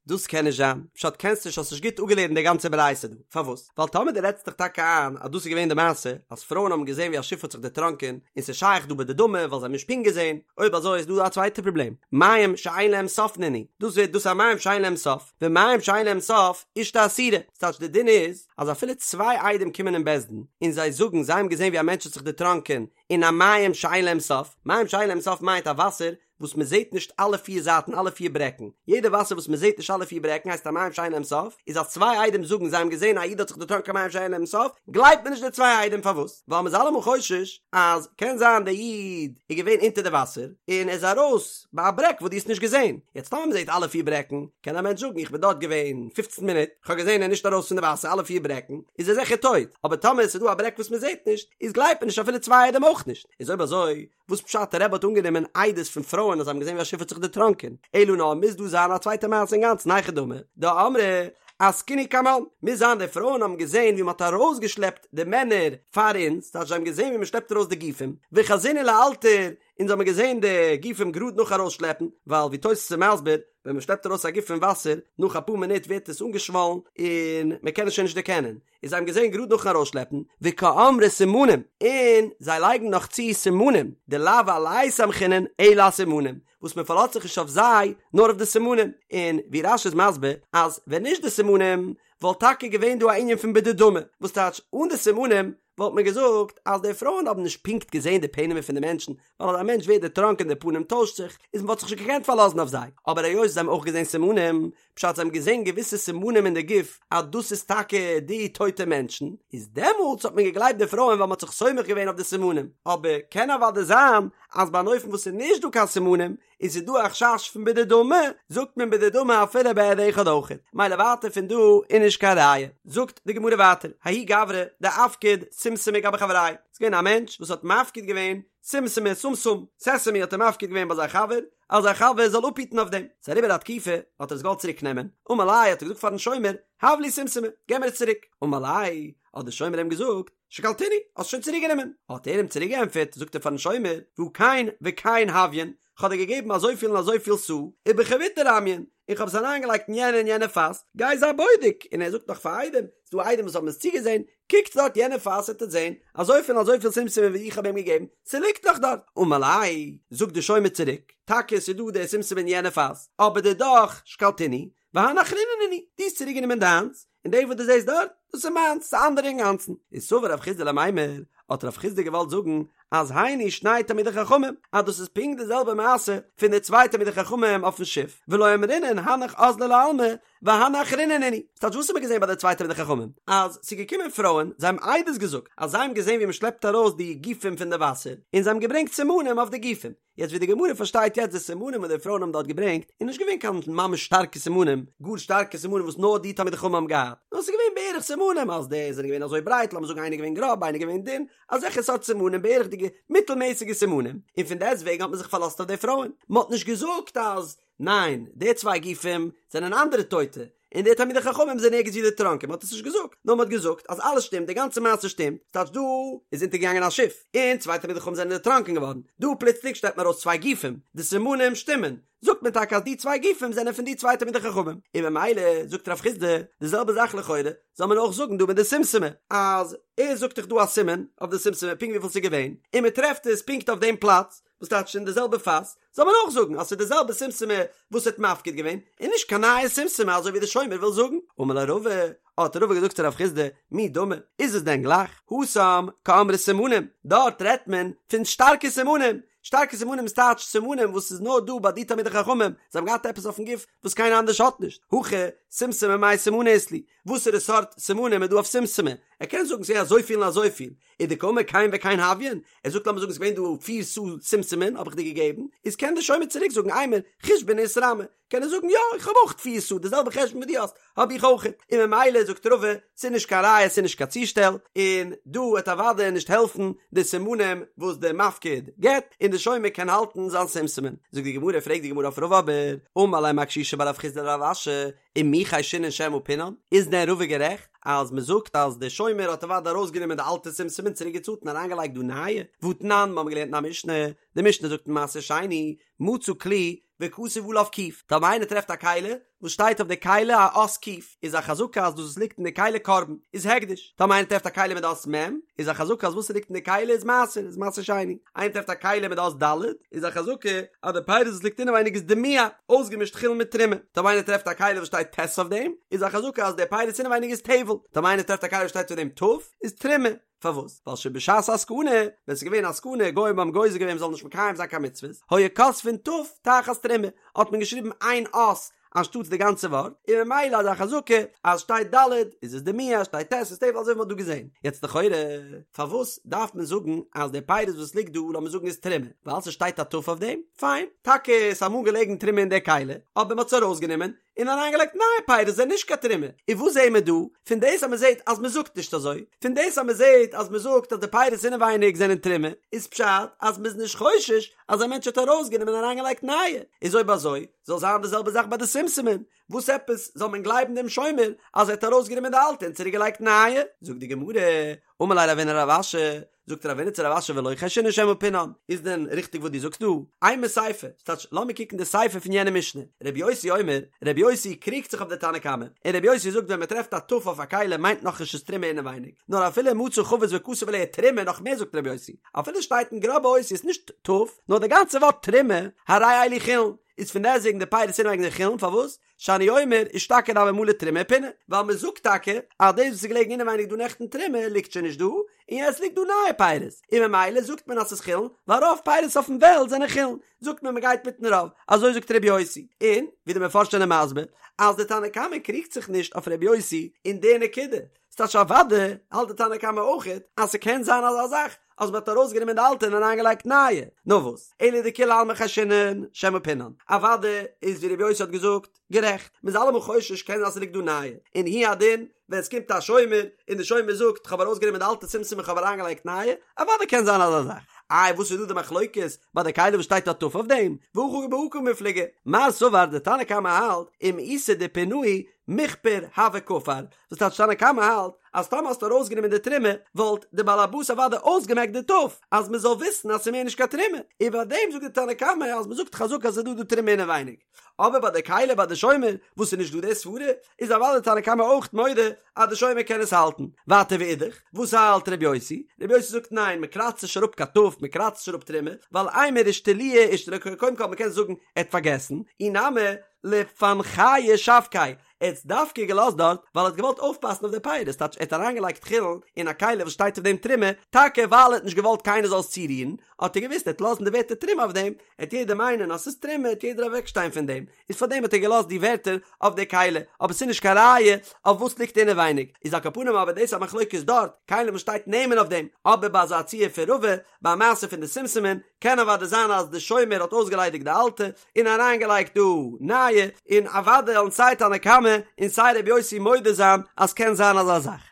דאס קען נישט זיין, פשט קענסט נישט האסט נישט גוט אפגעלערנט די גאנצע ברייתא דא, פארוואס? ווייל טאמער דו רעדסט דיך טאקע איין אז דאס איז געווען די מעשה, אז פרויען האבן געזעהן ווי א שיף האט זיך דערטראנקען, און ס'איז שייך דא בדדמי ווייל זיי האבן נישט פונקט געזעהן, אויב אזוי איז דא א צווייטע פראבלעם, מים שאין להם סוף נינהו, דאס ווערט דאס א מים שאין להם סוף, ומים שאין להם סוף אשתו אסורה, ס'טייטש די דין איז אז אפילו צוויי עדים קומען אין בית דין און זיי זאגן זיי האבן געזעהן ווי א מענטש האט זיך דערטראנקען אין א מים שאין להם סוף, מים שאין להם סוף מיינט א וואסער וואס מען זעט נישט אלע פיר זייטן אלע פיר ברעקן, יעדע וואסער וואס מען זעט נישט אלע פיר ברעקן הייסט א מים שאין להם סוף, איז אז צוויי עדים זאגן זיי האבן געזען א איד האט זיך דערטראנקען מים שאין להם סוף, גלייבט מען נישט די צוויי עדים פארוואס? ווייל מען איז אלעמאל חושש אז קען זיין דער איד איז געווען אונטער די וואסער און ער איז ארויס ביי א ברעק וואס דו האסט נישט געזען, יעצט טאמער מען זעט אלע פיר ברעקן קען א מענטש זאגן איך בין דארט געווען פופצן מינוט, איך האב געזען ער איז נישט ארויס פון די וואסער אלע פיר ברעקן, איז ער זיכער טויט, אבער טאמער עס איז דא א ברעק וואס מען זעט נישט, איז גלייבט מען נישט אפילו צוויי עדים אויך נישט, איז אויב אזוי וואס פשט רבי האט אנגענומען עדות פון פרויען אז זיי האבן געזען ווי א שיף האט זיך דערטראנקען, אלא נאר מוז דא זיין א צווייטע מעשה אינגאנצן היכי דמי, דאמרי. אסקינהו קמן, מוז זיין די פרויען האבן געזען ווי מ'האט ארויסגעשלעפט די מענער פאר אונז, טייטש זיי האבן געזען ווי מ'שלעפט ארויס די גופים, וחזינהו לאלתר, אונז האבן געזען די גופים גראד נאך ארויסשלעפן, ווייל ווי תוס' איז מסביר, ווען מ'שלעפט ארויס א גוף פון וואסער, נאך אפאר מינוט ווערט עס אנגעשוואלן און מ'קען עס שוין נישט דערקענען, און זיי האבן געזען גראד נאכן ארויסשלעפן, וקאמרי סימנים, און זיי לייגן נאך צו סימנים, דלאו עלייהו סמכינן אלא אסימנים, וואס מען פארלאזט זיך נישט אויף זיי, נאר אויף די סימנים, און ווי רש"י איז מסביר, אז ווען נישט די סימנים, וואלט טאקע געווען דא א ענין פון בדדמי, וואס טייטש אן די סימנים, וואלט מען געזאגט אז די פרויען האבן נישט פונקט געזען די פענעמער פון די מענטשן, ווייל אז א מענטש ווערט דערטראנקען די פנים טוישט זיך, איז מען וואלט זיך נישט געקענט פארלאזן אויף זיי, אבער היות זיי האבן אויך געזען סימנים, פשט זיי האבן געזען געוויסע סימנים אין די גוף אז דאס איז טאקע די טויטע מענטשן, איז דעמאלטס האט מען געגלייבט די פרויען ווייל מען האט זיך סומך געווען אויף די סימנים, אבער קען אוודאי זיין אז ביי אן אופן וואס איז נישט דא קיין סימנים און ס'איז דא א חשש פון בדדמי, זאגט מען בדדמי אפילו בעד אחד אויכעט, מילא ווייטער פון דא איז נישט קיין ראיה. זאגט די גמרא ווייטער, ההוא גברא דאפקיד שומשמי גבי חברי', ס'איז געווען א מענטש וואס האט מפקיד געווען שומשמי סומסום, סעסעמי האט ער מפקיד געווען ביי זיין חבר, אז זיין חבר זאל אפהיטן אויף דעם. ס'איז אריבער א תקופה, האט ער עס געוואלט צוריק נעמען, אמר ליה האט ער געזאגט פארן שומר, הב לי שומשמי, געב מיר עס צוריק. אמר ליה, האט דער שומר אים געזאגט, שקלתינהו, האסט שוין צוריק גענומען. האט ער אים צוריק געענטפערט, זאגט ער פארן שומר, והא כן וכן הויין, כ'האב דיר געגעבן אזויפיל און אזויפיל סאה, ובחביתא רמיין, און כ'האב עס אריינגעלייגט אין יענע און יענע פאס, גיי זיי בודק, און ער זאגט נאך פאר עדים, ס'דא עדים וואס האבן עס צוגעזען, קוקטס דארט יענע פאס וועט עטס זען, אזויפיל און אזויפיל שומשמין ווי איך האב אים געגעבן, ס'ליגט נאך דארט. אמר ליה, זאגט די שומר צוריק, טאקע ס'איז דא די שומשמין אין יענע פאס, אבער דידך שקלתינהו, והני אחריני נינהו, דו האסט צוריקגענומען דיינס, און די וואס דו זעסט דארט, דאס איז מיינס, ס'איז אנדערע אינגאנצן. איז סבר רב חסדא למימר, האט רב חסדא געוואלט זאגן, אז היינו שני תלמידי חכמים, אז דאס איז פונקט די זעלבע מעשה פון די צוויי תלמידי חכמים אויפן שיף, ולא אמרינן הנך אזלו לעלמא, והני אחריני נינהו. ס'טייטש וואס האט מען געזען ביי די צוויי תלמידי חכמים? אז ס'איז געקומען פרויען, זיי האבן עדות געזאגט אז זיי האבן געזען ווי מ'שלעפט ארויס די גופים פון די וואסער, און זיי האבן געברענגט סימנים אויף די גופים. יעצט ווי די גמרא פארשטייט יעצט די סימנים וואס די פרויען האבן דארט געברענגט איז נישט געווען קיין ממש שטארקע סימנים, גאר שטארקע סימנים וואס נאר די תלמידי חכמים האבן געהאט, נאר ס'איז געווען בערך סימנים אז די זענען געווען אזוי ברייט, לאמיר זאגן איינער געווען גראב איינער געווען דין, אזעלכע סארט סימנים בערכ'דיגע מיטלמעסיגע סימנים, און פון דעסט וועגן האט מען זיך פארלאזט אויף די פרויען, מען האט נישט געזאגט אז ניין די צוויי גופים זענען אנדערע טויטע, און די תלמידי חכמים זענען ערגעץ ווי דערטראנקען, מען האט עס נישט געזאגט, נאר מען האט געזאגט אז אלעס שטימט, די גאנצע מעשה שטימט, ס'טייטש דא איז אונטערגעגאנגען א שיף, און צוויי תלמידי חכמים זענען דערטראנקען געווארן, דא פלוצלינג שטעלט מען ארויס צוויי גופים, די סימנים שטימען, זאגט מען טאקע אז די צוויי גופים זענען פון די צוויי תלמידי חכמים, און ממילא זאגט רב חסדא די זעלבע זאך לכאורה, זאל מען אויך זאגן דא מיט די שומשמי, אז ער זאגט דאך דא א סימן אויף די שומשמי פונקט וויפיל ס'איז געווען, און מען טרעפט עס פונקט אויף דעם פלאץ, וואס טייטש אין די זעלבע פאס, זאל מען אויך זאגן אז ס'איז די זעלבע שומשמי וואס האט מפקיד געווען, און נישט קיין נייע שומשמי אזוי ווי די שומר וויל זאגן. אמר ליה רבא, האט רבא געזאגט צו רב חסדא, מי דמי, איז עס דען גלייך? התם קאמרי סימנים, דארט רעדט מען פון שטארקע סימנים, שטארקע סימנים איז טייטש סימנים וואס איז נאר דא ביי די תלמידי חכמים, זיי האבן געהאט עפעס אויפן גוף וואס קיינער אנדערש האט נישט, הכא שומשמי מאי סימנא אית להו, וואסערע סארט סימנים איז דא אויף שומשמי? ער קען זאגן ס'איז אזויפיל און אזויפיל, ודקאמר כן וכן הויין, ער זאגט לאמיר זאגן ס'איז געווען דא פיר סאה שומשמין האב איך דיר געגעבן, איז קען דער שומר צוריק זאגן אימר חושבנא איתרמי, קען ער זאגן יא איך האב אויך פיר סאה די זעלבע חשבון ווי דו האסט האב איך אויך, און ממילא זאגט רבא ס'איז נישט קיין ראיה ס'איז נישט קיין צושטעל, און דא וועט אוודאי נישט העלפן די סימנים וואס דער מפקיד געבט, און דער שומר קען האלטן זיין שומשמין. זאגט די גמרא פרעגט די גמרא אויף רבא אבער, אמר ליה מר קשישא בר רב חסדא לרב אשי, ומי חיישינן שמא פינן? איז דען רבא גערעכט אז מען זאגט אז דער שומר האט אוודאי ארויסגענומען די אלטע שומשמין צוריק געצאלט און אריינגעלייגט דא נייע? והתנן, מיר האבן געלערנט אין א משנה, די משנה זאגט אין מעשר שני, מצא כלי וכתוב עליו ק', טאמער איינער טרעפט א כלי וואס שטייט אויף די כלי א אות ק', איז א חזקה אז דאס וואס ליגט אין די כלי קרבן איז הקדש, טאמער איינער טרעפט א כלי מיט די אות מ', איז א חזקה אז וואס ס'ליגט אין די כלי איז מעשר, איז מעשר שני. איינער טרעפט א כלי מיט די אות ד', איז א חזקה אז די פירות וואס ליגט אינעווייניג איז דימוע, אויסגעמישט חולין מיט תרומה. טאמער איינער טרעפט א כלי וואס שטייט ט' אויף דעם, איז א חזקה אז די פירות אינעווייניג איז טבל. טאמער איינער טרעפט א כלי וואס שטייט אויף דעם ת', איז תרומה. פארוואס? ווייל שבשעת הסכנה, ווען ס'איז געווען א סכנה, גוים האבן גוזר געווען מ'זאל נישט מקיים זיין קיין מצוות, היו כותבין ת' תחת תרומה, האט מען געשריבן איין אות אנשטאטס די גאנצע ווארט, און ממילא איז א חזקה אז שטייט ד' איז עס דימוע, שטייט ט' איז טבל אזוי ווי מ'האט דא געזען. יעצט לכאורה, פארוואס דארף מען זאגן אז די פירות וואס ליגט דא לאמיר זאגן איז תרומה? ווייל ס'שטייט א ת' אויף דעם? פיין, טאקע איז אמאל געלעגן תרומה אין די כלי, אבער מ'האט עס ארויסגענומען, און אריינגעלייגט נייע פירות זענען נישט קיין תרומה, און וואס זעהן מיר דא? פון דאס אז מען זעהט אז מען זאגט נישט אזוי, פון דאס אז מען זעהט אז מען זאגט אז די פירות אינעווייניג זענען תרומה, איז פשט אז מען איז נישט חושש אז א מענטש האט ארויסגענומען און אריינגעלייגט נייע, איז אויב אזוי זאל זיין די זעלבע זאך ביי די שומשמין, וואס עפעס זאל מען גלייבן דעם שומר אז ער האט ארויסגענומען די אלטע און צוריק געלייגט נייע? זאגט די גמרא, אמר ליה רבינא לרב אשי, זאגט רבינא צו רב אשי ולא חיישינן שמא פינן, איז דען ריכטיג וואס דו זאגסט דא? אימא סיפא, ס'טייטש לאמיר קוקן די סיפא פון יענע משנה, רבי יוסי אומר, רבי יוסי קריגט זיך אויף די תנא קמא, און רבי יוסי זאגט ווען מ'טרעפט א ת' אויף א כלי מיינט נאכנישט ס'איז תרומה אינעווייניג, נאר אפילו מצא חבית וכתב עליה תרומה נאך מער זאגט רבי יוסי, אפילו שטייט אין גראבע אותיות נישט ת' נאר די גאנצע ווארט תרומה, הרי אלו חולין, איז פון דעסטוועגן די פירות אינעווייניג זענען חולין, פארוואס? שאני אומר אשתקד הוה מלא תרומה ופונה, ווייל מען זאגט טאקע אז דאס וואס איז געלעגן אינעווייניג דא נעכטן תרומה ליגט שוין נישט דא, און יעצט ליגט דא נייע פירות, און ממילא זאגט מען אז ס'איז חולין, ווייל רוב פירות אויפן וועלט זענען חולין, זאגט מען מ'גייט מיטן רוב, אזוי זאגט ר' יוסי, און ווי די מפרשים זענען מסביר אז די תנא קמא קריגט זיך נישט אויף ר' יוסי אין די נקודה, ס'טייטש אוודאי האלט די תנא קמא אויכעט אז ס'קען זיין אזא זאך אז מ'האט ארויסגענומען די אלטע און אריינגעלייגט נייע, נאר וואס, אלא דכולי עלמא חיישינן שמא פינן, אוודאי איז ווי רבי יוסי האט געזאגט, גערעכט, מ'איז אלעמאל חושש קען זיין אז ס'ליגט דא נייע, און הוא הדין ווען ס'קומט א שומר און די שומר זאגט כ'האב ארויסגענומען די אלטע שומשמין און כ'האב אריינגעלייגט נייע, אוודאי קען זיין אזא זאך, איי וואס איז דא די מחלוקת ביי די כלי וואס שטייט א ת' אויף דעם, והכא בהא קמיפלגי, מר סבר די תנא קמא האלט אם איתא דפינהו מיכפר הוה כפר, דאס טייטש תנא קמא האלט אז טאמער האסטו ארויסגענומען די תרומה וואלט די בעל הבית אוודאי אויסגעמעקט די ת' אז מען זאל וויסן אז ס'איז מער נישט קיין תרומה, און ביי דעם זאגט די תנא קמא אז מען זאגט חזקה אז ס'איז דא די תרומה אינעווייניג, אבער ביי די כלי ביי די שומר וואס איז נישט דא די סברה איז אוודאי די תנא קמא אויך מודה אז די שומר קען עס האלטן. ווייטער ואידך, וואס האלט ר' יוסי? ר' יוסי זאגט ניין מען קראצט נישט אראפ קיין ת' מען קראצט נישט אראפ תרומה, ווייל אימר אישתלויי אישתלי קודם כל מען קען זאגן ער האט פארגעסן, אי נמי לפנחיא שבקיה ער האט עס דווקא געלאזט דארט ווייל ער האט געוואלט אויפפאסן אויף די פירות, טייטש ער האט אריינגעלייגט חולין אין א כלי וואס שטייט אויף דעם תרומה, טאקע ווייל ער האט נישט געוואלט קיינער זאל עס צורירן, האט ער געוואוסט ער וועט לאזן די ווערטער תרומה אויף דעם, עט יעדער מיינען אז ס'איז תרומה עט יעדער אוועקשטיין פון דעם, איז פארדעם האט ער געלאזט די ווערטער אויף די כלי, אבער ס'איז נישט קיין ראיה אויף וואס ליגט אינעווייניג, איז על כל פנים אבער דאס א מחלוקת דארט, כלים וואס שטייט נעמען אויף דעם, אבער ביי אזא ציור פון רבא, ביי א מעשה פון די שומשמין, קען אוודאי זיין אז די שומר האט אויסגעליידיגט די אלטע, און אריינגעלייגט דא נייע, און אוודאי וועלן סיי תנא קמא און סיי רבי יוסי מודה זיין אז קען זיין אזא זאך.